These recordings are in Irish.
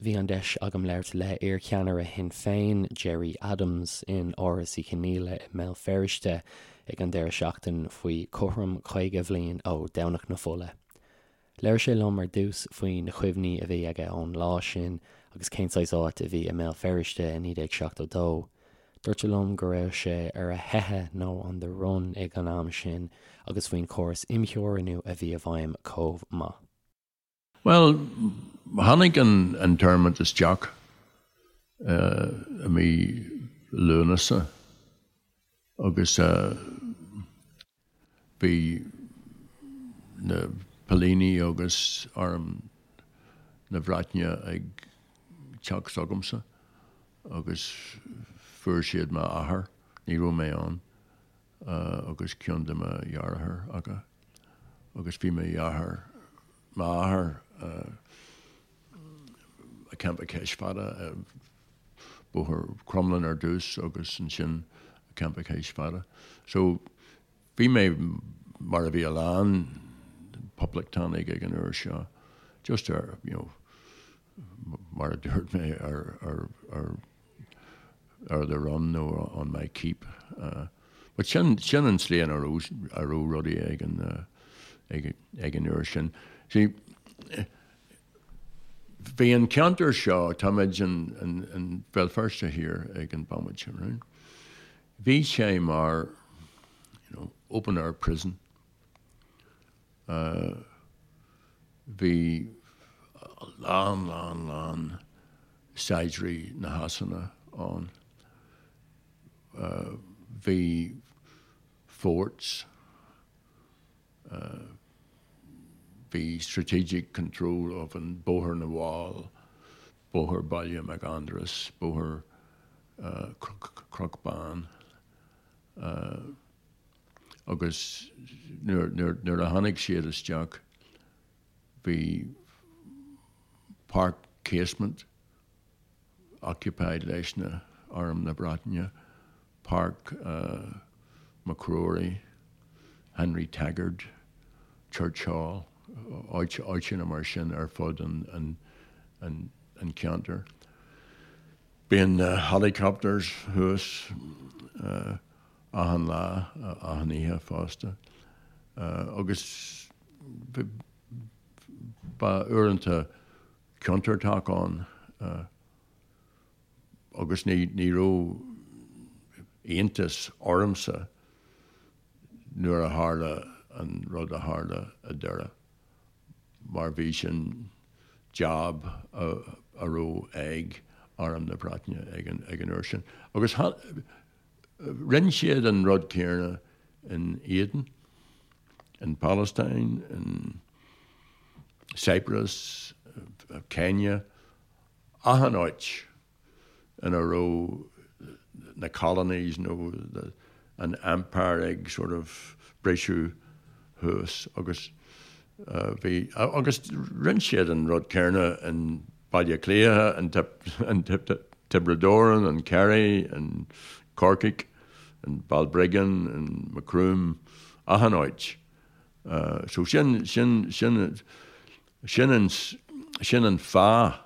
Bhí an deis agam labhairt le iarcheannaire Shinn Féin, Gerry Adams, in Áras Uí Chonghaile i mBéal Feirste ag an deireadh seachtain faoi cothrom 50 bhliain ó Domhnach na Fola. Labhair sé liom ar dtús faoi na cuimhní a bhí aige ón lá sin agus cén saghas áit a bhí i mBéal Feirste i 1972. Dúirt sé liom go raibh sé ar a theitheadh nó on the run ag an am sin agus faoin chóras imtheorannú a bhí i bhfeidhm chomh maith. Bhuel, tháinig an internment isteach i mí Lúnasa agus bhí na póilíní agus arm na Breataine ag teacht chugamsa agus fuair siad m'athair, ní raibh mé ann. agus ceann de mo dheartháireacha agus bhí mo dheartháir, m'athair i Campa Chois Fada, Bóthar Crumlin ar dtús agus ansin Campa Chois Fada. So bhí mé mar a bhí a lán poblachtánaigh ag an uair seo, just ar, you know, mar a dúirt mé ar, ar, ar ar the run nó on my keep. But sin, sin an tslí ina raibh, a raibh rudaí ag an, ag, ag an uair sin. See, bhí an ceantar seo, táimid in, in, in Béal Feirste Thiar ag an bomaite, right? Bhí sé mar, you know, open air prison. Bhí a lán, lán, lán saighdiúirí na Shasana ann. Bhí forts, bhí strategic control of an Bóthar na bhFál, Bóthar Baile Mhic Aindreas, Bóthar Chnoc Bán. Agus nuair a tháinig siad isteach bhí Páirc Casement occupied leis na Arm na Breataine, Páirc MacRory, Henry Taggart, Church Hall, áiteanna mar sin ar fud an cheantair. Bíonn na helicopters thuas achan lá, achan oíche fosta. Agus ba uaireanta contúirteach ann agus ní ní raibh iontas ormsa nuair a tharla an rud a tharla i Doire mar bhí sin job a raibh ag Arm na Breataine ag an uair sin. Agus Rinne siad an rud céanna in Aden, in Palestine, in Cyprus, Kenya, achan áit ina raibh na colonies nó an empire ag sort of briseadh thuas agus bhí, agus rinne siad an rud céanna in Baile Átha Cliath, in Tiobraid Árann, in Kerry, in Corcaigh, in Balbriggan, in Macroom, achan áit. So sin, sin, sin, sin an, sin an fáth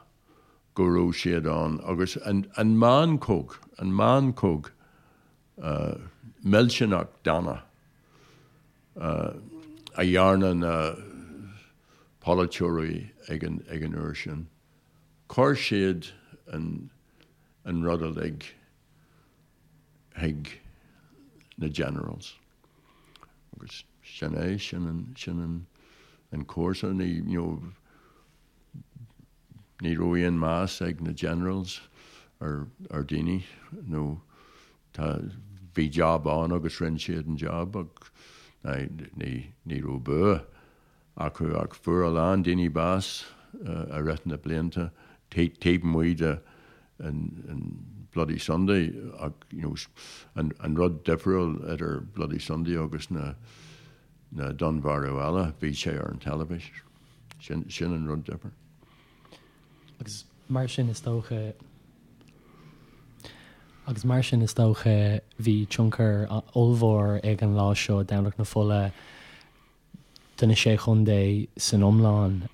go raibh siad ann agus an, an meancóg, an meancóg millteanach dána a dhearna na polaiteoirí ag an ag an uair sin. Chuir siad an an rud uilig chuig na generals. Agus sin é, sin an sin an an cúrsa. Ní you know ní raibh aon meas ag na generals ar ar daoine nó tá bhí job ann agus rinne siad an job ach ní ní raibh bua acu ach fuair a lán daoine bás i rith na blianta taobh amuigh de an Bloody Sunday ach you know an rud difriúil idir Bloody Sunday agus na na dúnmharú eile bhí sé ar an teilifís. Sin sin an rud difriúil. Agus mar sin is dócha agus mar sin is dócha bhí tionchar ollmhór ag an lá seo, Domhnach na Fola, do na Sé Chontae san iomlán.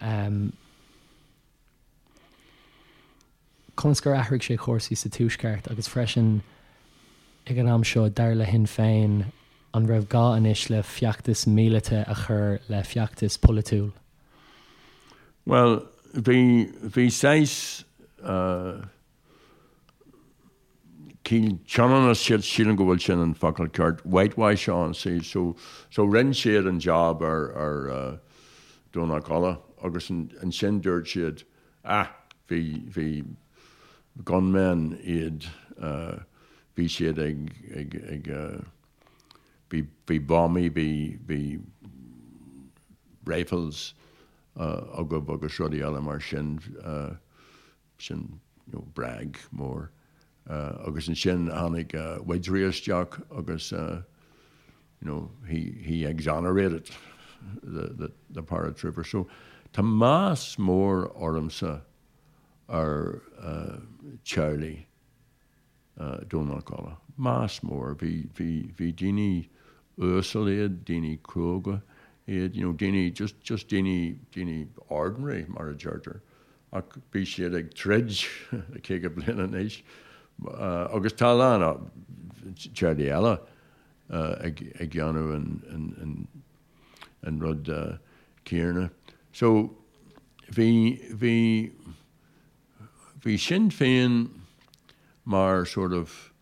Conas gur athraigh sé cúrsaí sa Tuaisceart agus freisin ag an am seo, dar le Shinn Féin, an raibh gá anois le feachtas míleata a chur le feachtas polaitiúil? Bhuel, bhí, bhí saghas cineál ionannais, sílim go bhfuil sin an focal ceart, whitewash ann, see, so, so rinne siad an job ar, ar Domhnach Uladh agus ansin dúirt siad, ah, bhí, bhí gunmen iad, bhí siad ag, ag, ag, bhí, bhí buamaí, bhí, bhí rifles agaibh agus rudaí eile mar sin, sin, you know, bréag mór. Agus ansin tháinig Widgery isteach agus, you know, he, he exonerated the, the, the paratroopers. So tá meas mór ormsa ar teaghlaigh Domhnach Uladh. Meas mór. Bhí, bhí, bhí daoine uasal iad, daoine cróga iad, you know, daoine, just, just daoine, daoine ordinary mar a deirtear. Ach bhí siad ag troid le 50 bliain anois agus tá a lán teaghlaigh eile ag déanamh an rud céanna. So bhí, bhí, bhí Sinn Féin mar sort of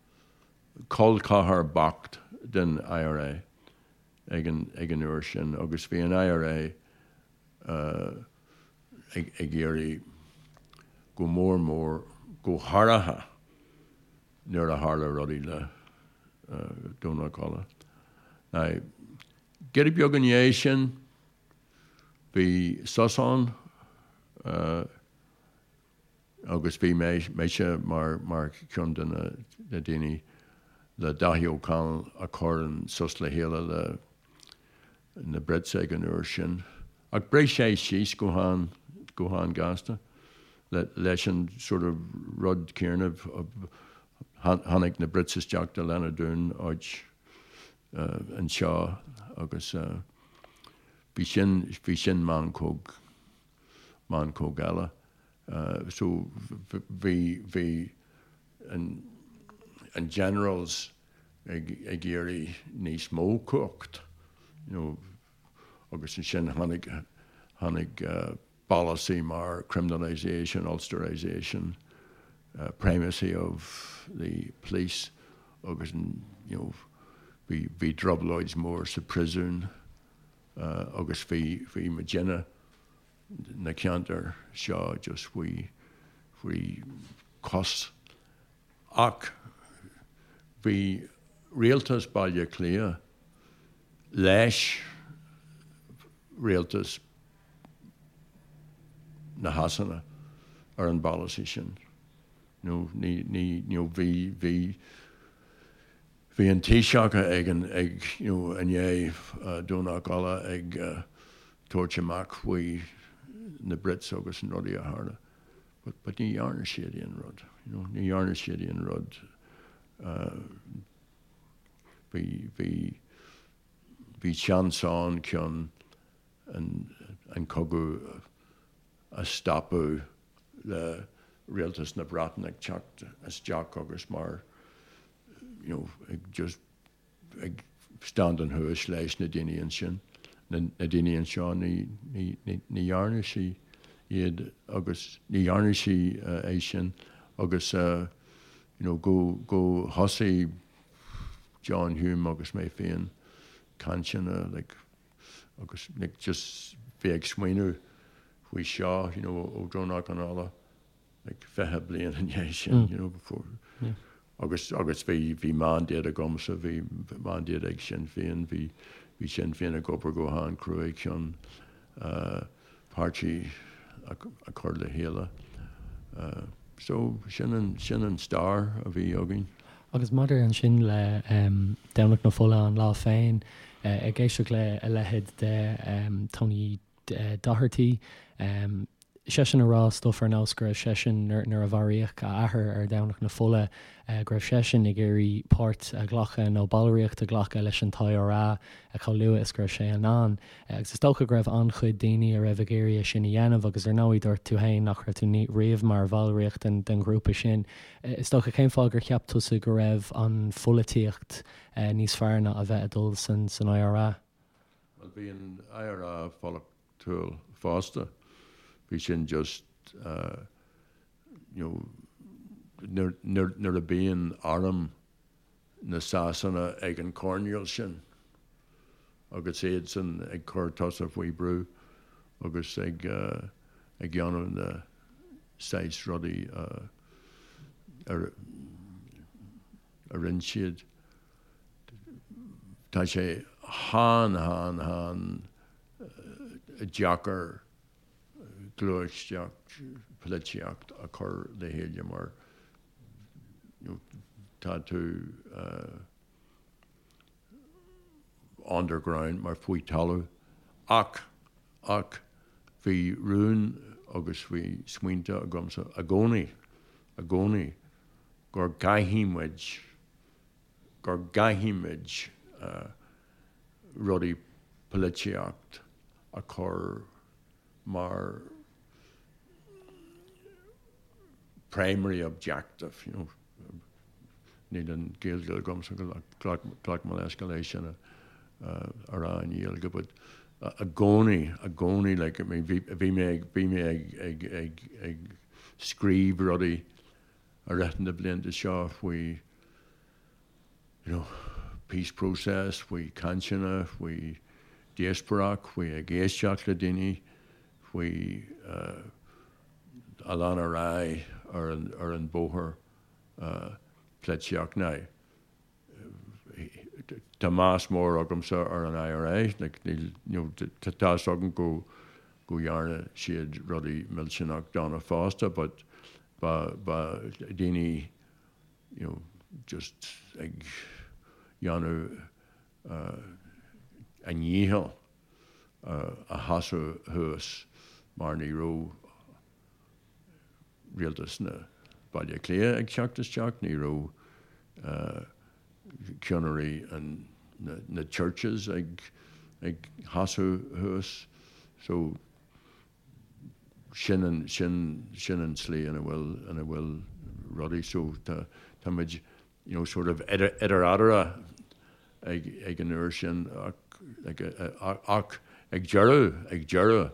col ceathar bocht den IRA ag an, ag an uair sin agus bhí an IRA ag iarraidh go mór mór, go háirithe nuair a tharla rudaí le Domhnach Uladh. Now, giota beag i ndiaidh sin, bhí sos ann agus bhí mise mar mar cheann de na daoine le Dáithí Ó Conaill a chur an sos le chéile le na Brits ag an uair sin. Ach bhris sé síos go han, go han-ghasta leis an sort of rud céanna. Tháinig na Brits isteach do Lenadoon áit anseo agus bhí sin, bhí sin meancóg, meancóg eile. So bhí, bhí an, an generals ag, ag iarraidh níos mó cumhacht, you know, agus ansin tháinig, tháinig polasaí mar criminalisation, Ulsterisation, primacy of the police agus you know bhí, bhí trioblóid mór sa príosún agus bhí, bhí muidinne na ceantair seo just faoi, faoi chos. Ach bhí rialtas Baile Átha Cliath leis rialtas na Shasana ar an bpolasaí sin. Nó ní, ní, you know, bhí, bhí, bhí an Taoiseach ag an, ag, you know, i ndiaidh Domhnach Uladh ag tabhairt amach faoi na Brits agus an rudaí a tharla. But, but ní dhearna siad aon rud, you know, ní dhearna siad aon rud. Bhí, bhí, bhí seans ann chun an, an cogadh a stopadh le rialtas na Breataine ag teacht isteach agus mar, you know, ag just ag standing thuas leis na daoine ansin, na daoine anseo, ní, ní, ní, ní dhearna sí iad agus ní dhearna sí é sin agus you know, go, go thosaigh John Hume agus mé féin cainteanna like, agus like, just bheith ag smaoineamh faoi seo, you know, ó Domhnach an Uladh, like 20 bliain i ndiaidh sin, you know, before. Yeah. Agus, agus bhí, bhí mandate agamsa, bhí mandate ag Sinn Féin, bhí, bhí Sinn Féin ag obair go han-cruaidh chun uh, páirtí a, a chur le chéile. Uh, so sin an, sin an stair a bhí againn. Agus maidir ansin le um, Domhnach na Fola an lá féin, uh, ag éisteacht le a leithéid de um, Tony Doherty, um, seisean ag rá stuff ar nós go raibh seisean, nuair a mharaíodh a athair ar Dhomhnach na Fola, go raibh seisean ag iarraidh páirt a ghlacadh nó ballraíocht a ghlacadh leis an t-IRA chomh luath is go raibh sé in ann. Agus is dócha go raibh an-chuid daoine a raibh ag iarraidh é sin a dhéanamh agus ar ndóigh dúirt tú féin nach raibh tú riamh mar bhallraíocht den ghrúpa sin. Is dócha cén fáth gur cheap tusa go raibh an pholaitíocht níos fearr ná a bheith ag dul san IRA? Bhuel bhí an IRA polaitiúil fosta. Bhí sin just you know nuair a bíonn arm na Sasana ag an choirnéal sin agus iadsan ag cur tusa faoi brú agus ag ag dhéanamh na saghas rudaí a a rinne siad. Tá sé han han han deacair gluaiseacht polaitíocht a chur le chéile mar tá tú underground mar faoi talamh ach ach bhí rún agus bhí smaointe agamsa i gcónaí i gcónaí gur gcaithfidh muid gur gcaithfidh muid rudaí polaitíocht a chur mar primary objective, you know. Níl an Ghaeilge agamsa ghlac mo leithscéal é sin a rá i nGaeilge, but i gcónaí, i gcónaí, like, I mean, bhí, bhí mé ag, bhí mé ag, ag, ag, ag scríobh rudaí i rith na blianta seo faoi, you know, peace process, faoi cainteanna, faoi díospóireacht, faoi ag éisteacht le daoine, faoi a lean ar aghaidh ar an, ar an bóthar polaitíocht. Now, tá meas mór agamsa ar an IRA, like, níl, you know, tá fhios agam go, go dhearna siad rudaí millteanach dona fosta, but ba, ba daoine, you know, just ag dhéanamh a ndícheall a sheasamh thuas mar ní raibh rialtas na Baile Átha Cliath ag teacht isteach, ní raibh ceannairí na churches ag sheasamh thuas. So sin an, sin, sin an tslí ina bhfuil, ina bhfuil rudaí. So tá, tá muid, you know, sort of idir, idir eatarthu ag, ag an uair sin ach, ag, ach ag deireadh, ag deireadh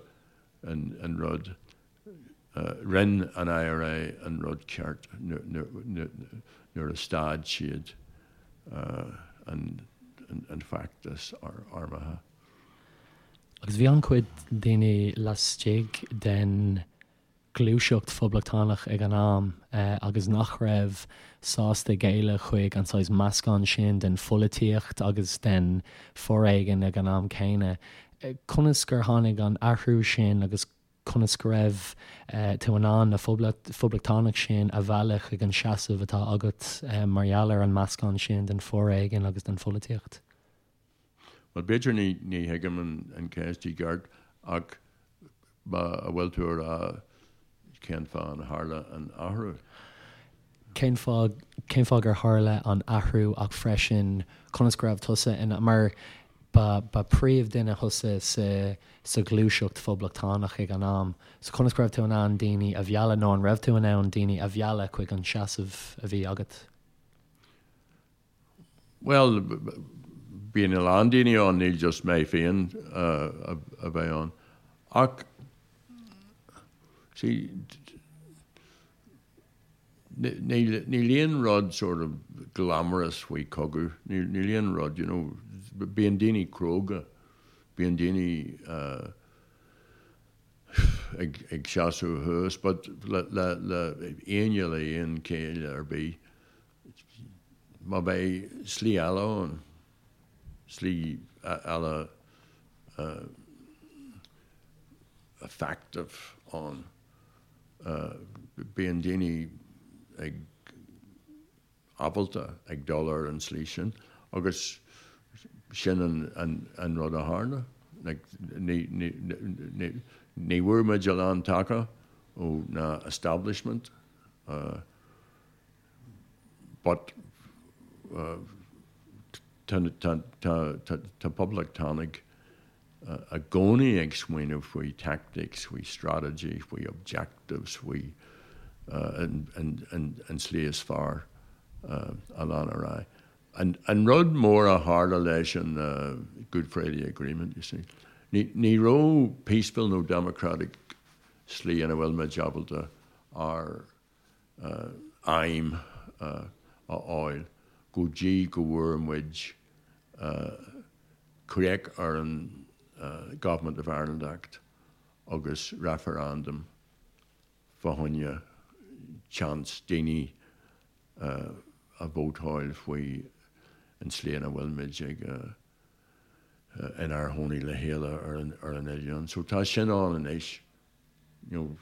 an, an rud, rinne an IRA an rud ceart nuair a stad siad an, an feachtas armtha. Agus bhí an-chuid daoine laistigh den ghluaiseacht phoblachtánach ag an am agus nach raibh sásta géilleadh chuig an saghas meascán sin den pholaitíocht agus den foréigean ag an am céanna. Conas gur tháinig an athrú sin agus conas go raibh tú in ann na poblachtánaigh sin a mhealladh chuig an seasamh atá agat mar gheall ar an meascán sin den foréigean agus den pholaitíocht? Bhuel, b'fhéidir ní ní thuigim an cheist i gceart ach má a bhfuil tú a rá cén fáth an tharla an athrú? Cén fáth cén fáth gur tharla an athrú ach freisin conas go raibh tusa in mar ba ba príomhdhuine thusa sa sa ghluaiseacht phoblachtánach ag an am so conas go raibh tú in ann daoine a mhealladh nó an raibh tú in ann daoine a mhealladh chuig an seasamh a bhí agat? Bhuel, bíonn a lán daoine ann, níl just mé féin a bheith ann. Ach, see, níl, níl aon rud sort of glamorous faoi cogadh, níl, níl aon rud, you know, bíonn daoine cróga, bíonn daoine ag, ag seasamh thuas, but le, le, le éinne le aon chéill ar bith, Má bheidh slí eile ann, slí eile effective ann, bíonn daoine ag ábalta ag dul ar an slí sin agus sin an rud a tharla. Like, ní, ní, ní, ní bhfuair muid a lán taca ó na establishment, but tá, tá, tá, tá, tá poblachtánaigh i gcónaí ag smaoineamh faoi tactics, faoi strategy, faoi objectives, faoi an tslí is fearr a lean ar aghaidh. An rud mór a tharla leis an Good Friday Agreement, you see, ní raibh peaceful nó democratic slí ina bhfuil muid ábalta ár aidhm a fháil go dtí go bhfuair muid críoch ar an Government of Ireland Act agus referendum fá choinne chance daoine a vótáil faoi an tslí ina bhfuil muid ag inár gcónaí le chéile ar an oileán. So tá sin ann anois. You know,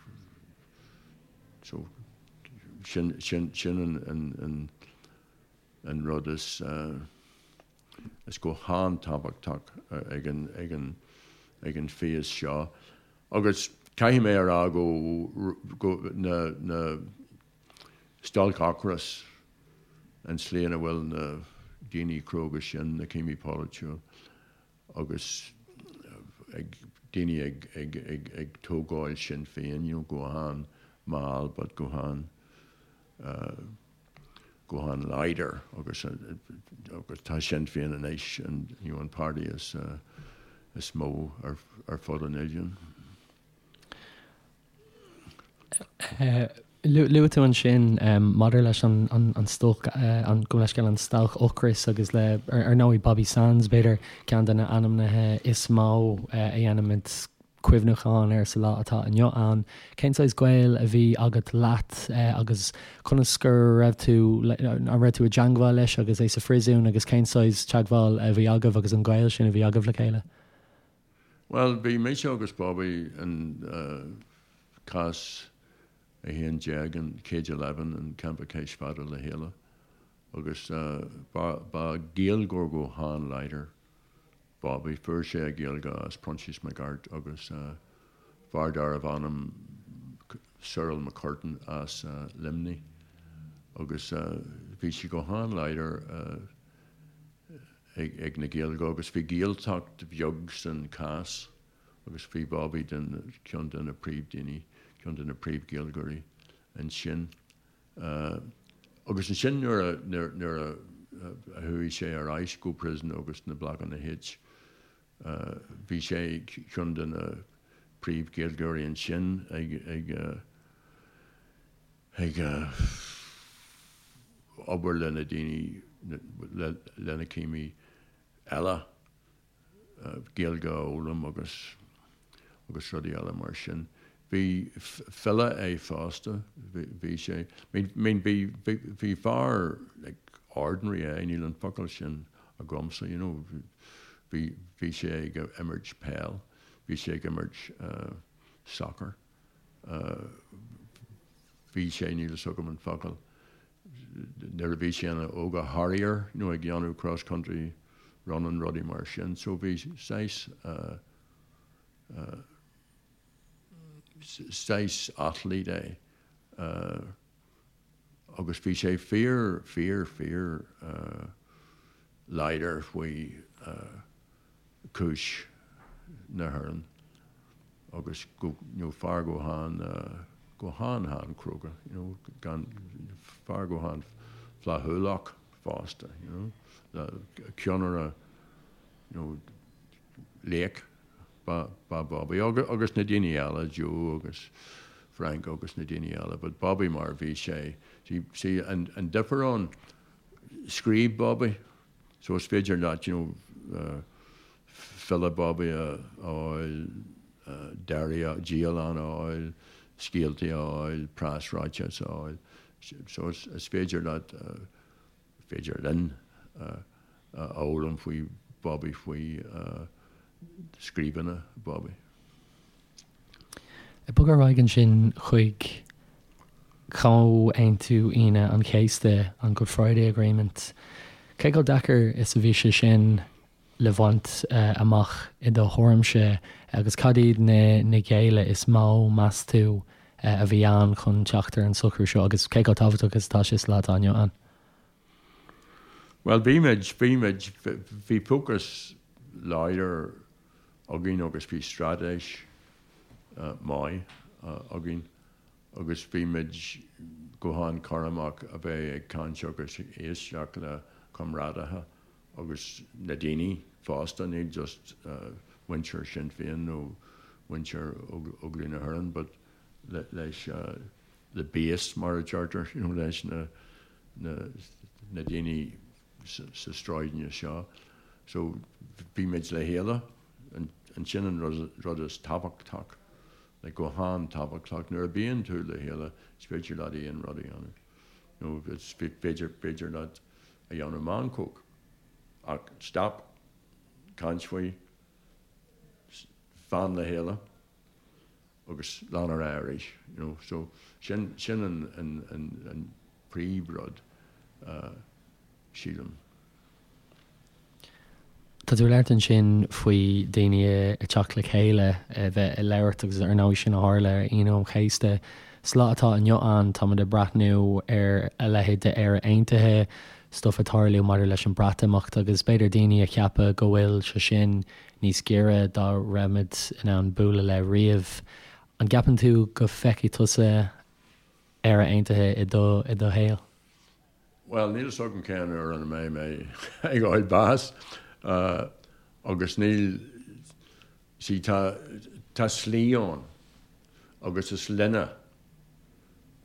so sin, sin, sin an, an, an, an rud is, is go han-tábhachtach ag an, ag an, ag an phase seo. Agus caithfidh mé a rá go, go, na, na stailc ocrais, an tslí ina bhfuil na daoine cróga sin, na cimí polaitiúil, agus ag daoine ag ag ag ag tógáil Sinn Féin, you know, go han-mhall but go han go han-láidir agus agus tá Sinn Féin anois an you know an páirtí is is mó ar ar fud an oileáin. Luaigh tú ansin maidir leis an stailc, gabh mo leithscéal, an stailc ocrais agus le, ar ndóigh, Bobby Sands, b'fhéidir ceann de na ainmnithe is mó a dhéanaimid cuimhneachán air sa lá atá inniu ann. Cén saghas gaol a bhí agat leat agus conas go raibh tú, an raibh tú i dteangmháil leis agus é sa phríosún agus cén saghas teagmháil a bhí agaibh agus an gaol sin a bhí agaibh le chéile? Bhuel, bhí mise agus Bobby in cás 11, in Cage 11 in Campa Cois Fada le chéile agus ba Ghaeilgeoir go han-láidir Bobby. Fuair sé a Ghaeilge as Proinsias Mac Airt agus fear darbh ainm Cyril McCurtain as Luimnigh agus bhí sé go han-láidir ag na Gaeilge agus bhí Gaeltacht bheag san cás agus bhí Bobby den ceann de na príomh-daoine, ceann de na príomh-Ghaeilgeoirí ansin. Agus ansin nuair a, nuair a chuaigh sé ar ais go prison agus na Blocanna H, bhí sé ceann de na príomh-Ghaeilgeoirí ansin ag, ag, ag obair le na daoine, le na cimí eile, Gaeilge a fhoghlaim agus agus rudaí eile mar sin. Bhí file é fosta, bhí sé, I mean bhí bhí fear like ordinary é, níl an focal sin agamsa, you know, bhí bhí sé ag imirt peil, bhí sé ag imirt soccer. Bhí sé, níl fhios agam an focal, nuair a bhí sé ina óga harrier nó ag dhéanamh cross country running rudaí mar sin so bhí saghas saghas athlete é agus bhí sé fíor fíor fíor láidir faoi cúis na hÉireann agus go you know fear go han go han han cróga you know gan fear go han flaithiúlach fosta you know ceannaire you know laoch ba ba Bobby agus agus na daoine eile Joe agus Frank agus na daoine eile but Bobby mar bhí sé see see an an difear ann scríobh Bobby So is féidir leat you know file Bobby a fháil, diary, dialann a fháil, scéaltaí a fháil, preasráiteas a fháil. So is féidir leat, féidir linn a fhoghlaim faoi Bobby, faoi scríbhinne Bobby. Ag bogadh ar aghaidh ansin chuig Comhaontú Aoine an Chéasta, an Good Friday Agreement. Cé chomh deacair is a bhí sé sin? le bhaint amach i do thuairimse agus cad iad na géilleadh is mó, meas tú, a bhí ann chun teacht ar an socrú seo agus cé chomh tábhachtach is atá sé sa lá atá inniu ann? Bhuel, bhí muid, bhí muid, bhí fócas láidir againn agus bhí straitéis maith againn agus bhí muid go han-chúramach a bheith ag caint agus ag éisteacht le comrádaithe agus na daoine fosta, ní just muintir Sinn Féin nó muintir Óglaigh na hÉireann but leis the base mar a deirtear, you know, leis na na daoine sa sráideanna seo. So bhí muid le chéile, ansin an rud is tábhachtach, like go han-tábhachtach, nuair a bíonn tú le chéile is féidir leat aon rud a dhéanamh, nó is féidir, féidir leat a dhéanamh meancóg ach stop, caint faoi, fan le chéile agus lean ar aghaidh arís, you know. So sin, sin an, an, an, an príomhrud, sílim. Tá tú ag labhairt ansin faoi daoine ag teacht le chéile, a bheith ag labhairt agus ar ndóigh sin a tharla ar Aoine an Chéasta. Sa lá atá inniu ann táimid ag breathnú ar a leithéid de Éire Aontaithe, stuif ag tarlú maidir leis an Breatimeacht agus b'fhéidir daoine a cheapadh go bhfuil sé sin níos giorra dá raibh muid in ann bualadh le riamh. An gceapann tú go bhfeicfidh tusa Éire Aontaithe i do i do shaol? Bhuel, níl a fhios agam cén uair ina mbeidh mé ag fháil bás agus níl, see tá, tá slí ann agus is linne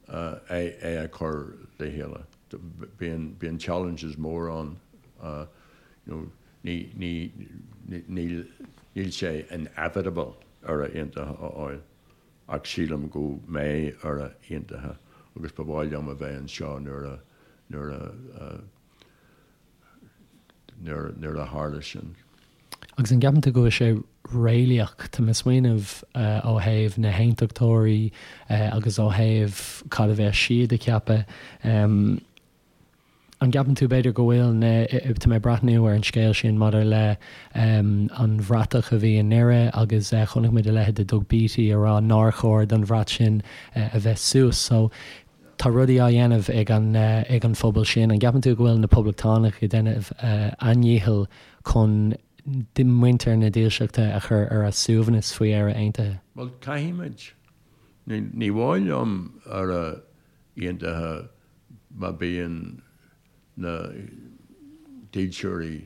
é é a chur le chéile. Bíonn, bíonn challenges mór ann, you know, ní, ní, níl, níl sé inevitable Éire Aontaithe a fháil. Ach sílim go mbeidh Éire Aontaithe agus ba mhaith liom a bheith anseo nuair a, nuair a, nuair, nuair a tharla sin. Agus an gceapann tú go bhfuil sé réalaíoch? Tá mé ag smaoineamh ó thaobh na hAontachtóirí agus ó thaobh cad a bheas siad ag ceapadh. An gceapann tú, b'fhéidir, go bhfuil na, tá mé ag breathnú ar an scéal sin maidir le an bhratach a bhí i nDoire agus chonaic muid a leithéid de Doug Beattie ag rá nár chóir don bhrat sin a bheith suas. So tá rudaí á dhéanamh ag an ag an phobal sin. An gceapann tú go bhfuil na Poblachtánaigh ag déanamh a ndícheall chun muintir na Dílseachta a chur ar a suaimhneas faoi Éire Aontaithe? Bhuel, caithfimid. Ní mhaith liom Éire Aontaithe má bíonn na dílseoirí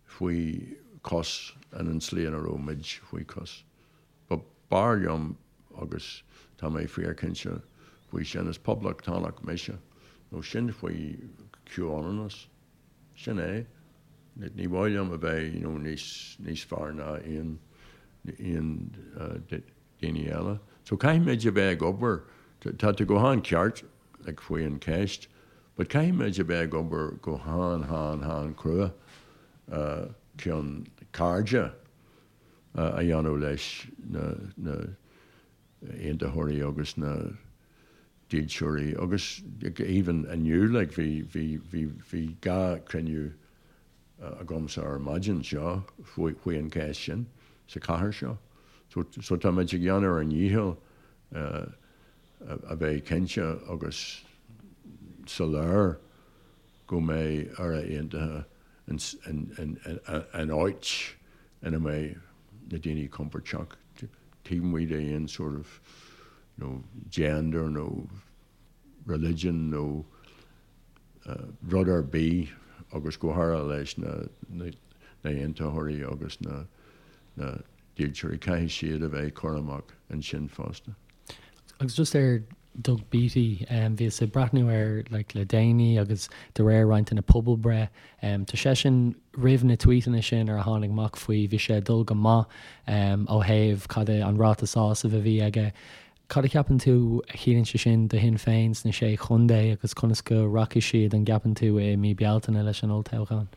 faoi chois in an tslí ina raibh muid faoi chois. But b'fhearr liom, agus tá mé fíorchinnte faoi sin, is poblachtánach mise, nó sin faoi chomhionannas. Sin é. Ní mhaith liom a bheith you know níos níos fearr ná aon aon daoine eile. So caithfimid a bheith ag obair, tá tú go han-cheart like faoi an cheist, but caithfimid a bheith ag obair go han han han crua chun cairde a dhéanamh leis na na aontaitheoirí agus na dílseoirí agus even inniu like bhí bhí bhí bhí gá cruinniú agamsa ar maidin seo faoi an cheist sin sa chathair seo. So so táimid ag déanamh ár ndícheall a bheith cinnte agus soiléir go mbeidh Éire Aontaithe in áit ina mbeidh na daoine compordach taobh amuigh de aon sort of you know gender nó religion nó rud ar bith agus go háirithe leis na haontaitheoirí agus na dílseoirí, caithfidh siad a bheith cúramach ansin fosta. Agus just ar Doug Beattie, bhíos ag breathnú air like le déanaí agus de réir roinnt de na pobalbhreith, tá seisean roimh na tweetanna sin ar a tháinig amach faoi, bhí sé ag dul go maith ó thaobh cad é an ráta sásaimh a bhí aige. Cad a cheapann tú a chiallaíonn sé sin do Shinn Féin sna Sé Chontae agus conas go rachaidh siad, an gceapann tú, i mí Bealtaine leis an olltoghchán?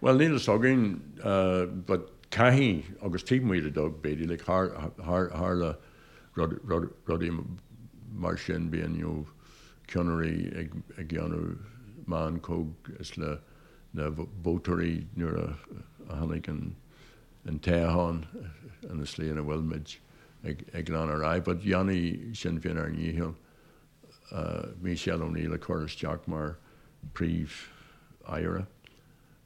Bhuel, níl fhios againn but caithfidh, agus taobh amuigh de Doug Beattie, like tharla rudaí mar sin, bíonn you know ceannairí ag déanamh meancóg is le. na vótóirí nuair a tháinig an toghchán ina slí ina bhfuil muid ag lean ar aghaidh. But dhéanfaidh Sinn Féin ár ndícheall Michelle O'Neill a chur isteach mar Príomh-Aire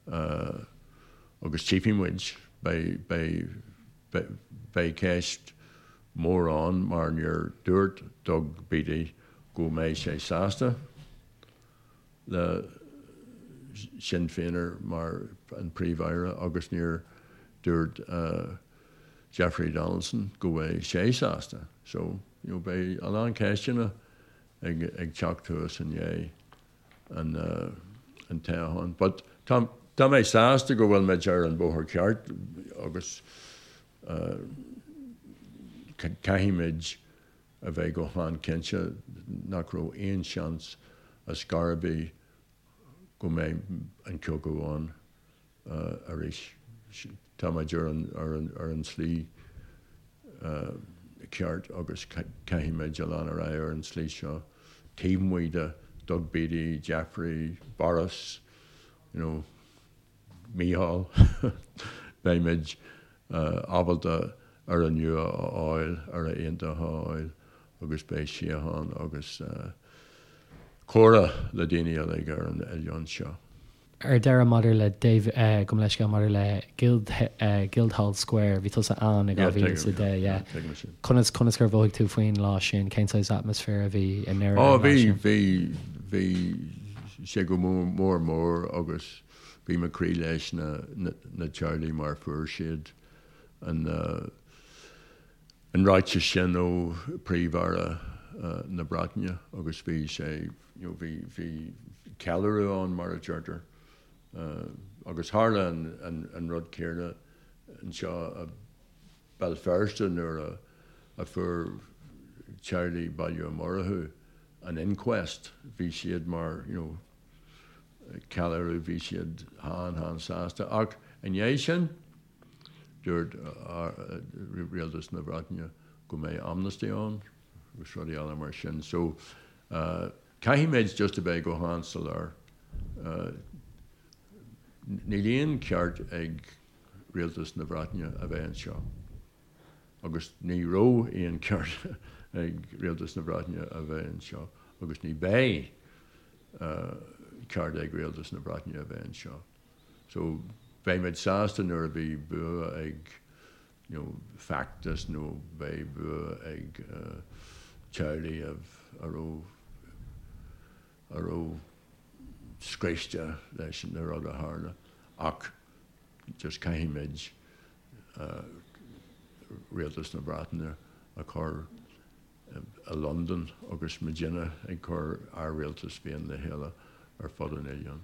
agus tchífidh muid, beidh ceist mhór ann mar níor dúirt Doug Beattie go mbeidh sé sásta le Sinn Féiner mar an Príomh-Aire agus níor dúirt Jeffrey Donaldson go mbeidh sé sásta. So, you know, beidh a lán ceisteanna ag ag teacht thuas i ndiaidh an an toghcháin. But tá tá mé sásta go bhfuil muid ar an bóthar ceart agus caithfidh muid a bheith go han-chinnte nach raibh aon seans ar scor ar bith go mbeidh an cogadh ann arís. Tá muid ar an tslí ceart agus caithfidh muid a lean ar aghaidh ar an tslí seo taobh amuigh de Doug Beattie, Jeffrey, Boris, you know, Micheál, beidh muid ábalta Éire nua a fháil, Éire aontaithe a fháil agus beidh síocháin agus comhrá le daoine uilig ar an oileán seo. Ar deireadh, maidir le David, gabh mo leithscéal, maidir le Guild, Guildhall Square, bhí tusa ann i 2010, yeah. Conas, conas gur mhothaigh tú faoin lá sin? Cén saghas atmaisféar a bhí i nDoire ar an lá sin? Bhí, bhí, bhí sé go mór mór agus bhí mo chroí leis na, na teaghlaigh mar fuair siad an, an ráiteas sin ó Príomh-Aire na Breataine agus bhí sé, you know, bhí, bhí ceiliúradh ann mar a deirtear. Agus tharla an, an, an rud céanna anseo i Béal Feirste nuair a, a fuair teaghlaigh Baile Uí Mhurchú an inquest, bhí siad mar, you know, ceiliúradh, bhí siad han-han-sásta. Ach i ndiaidh sin, dúirt Rialtas na Breataine go mbeidh amnesty ann agus rudaí eile mar sin. So, caithfimid just a bheith go han-soiléir. Níl aon ceart ag Rialtas na Breataine a bheith anseo. Agus ní raibh aon ceart ag Rialtas na Breataine a bheith anseo agus ní bheidh ceart ag Rialtas na Breataine a bheith anseo. So beidh muid sásta nuair a bhí bua ag you know feachtas nó beidh bua ag teaghlaigh a raibh a raibh scriosta leis na rud a tharla ach just caithfidh muid Rialtas na Breataine a chur i Londain agus muidinne ag cur ár rialtas féin le chéile ar fud an oileáin.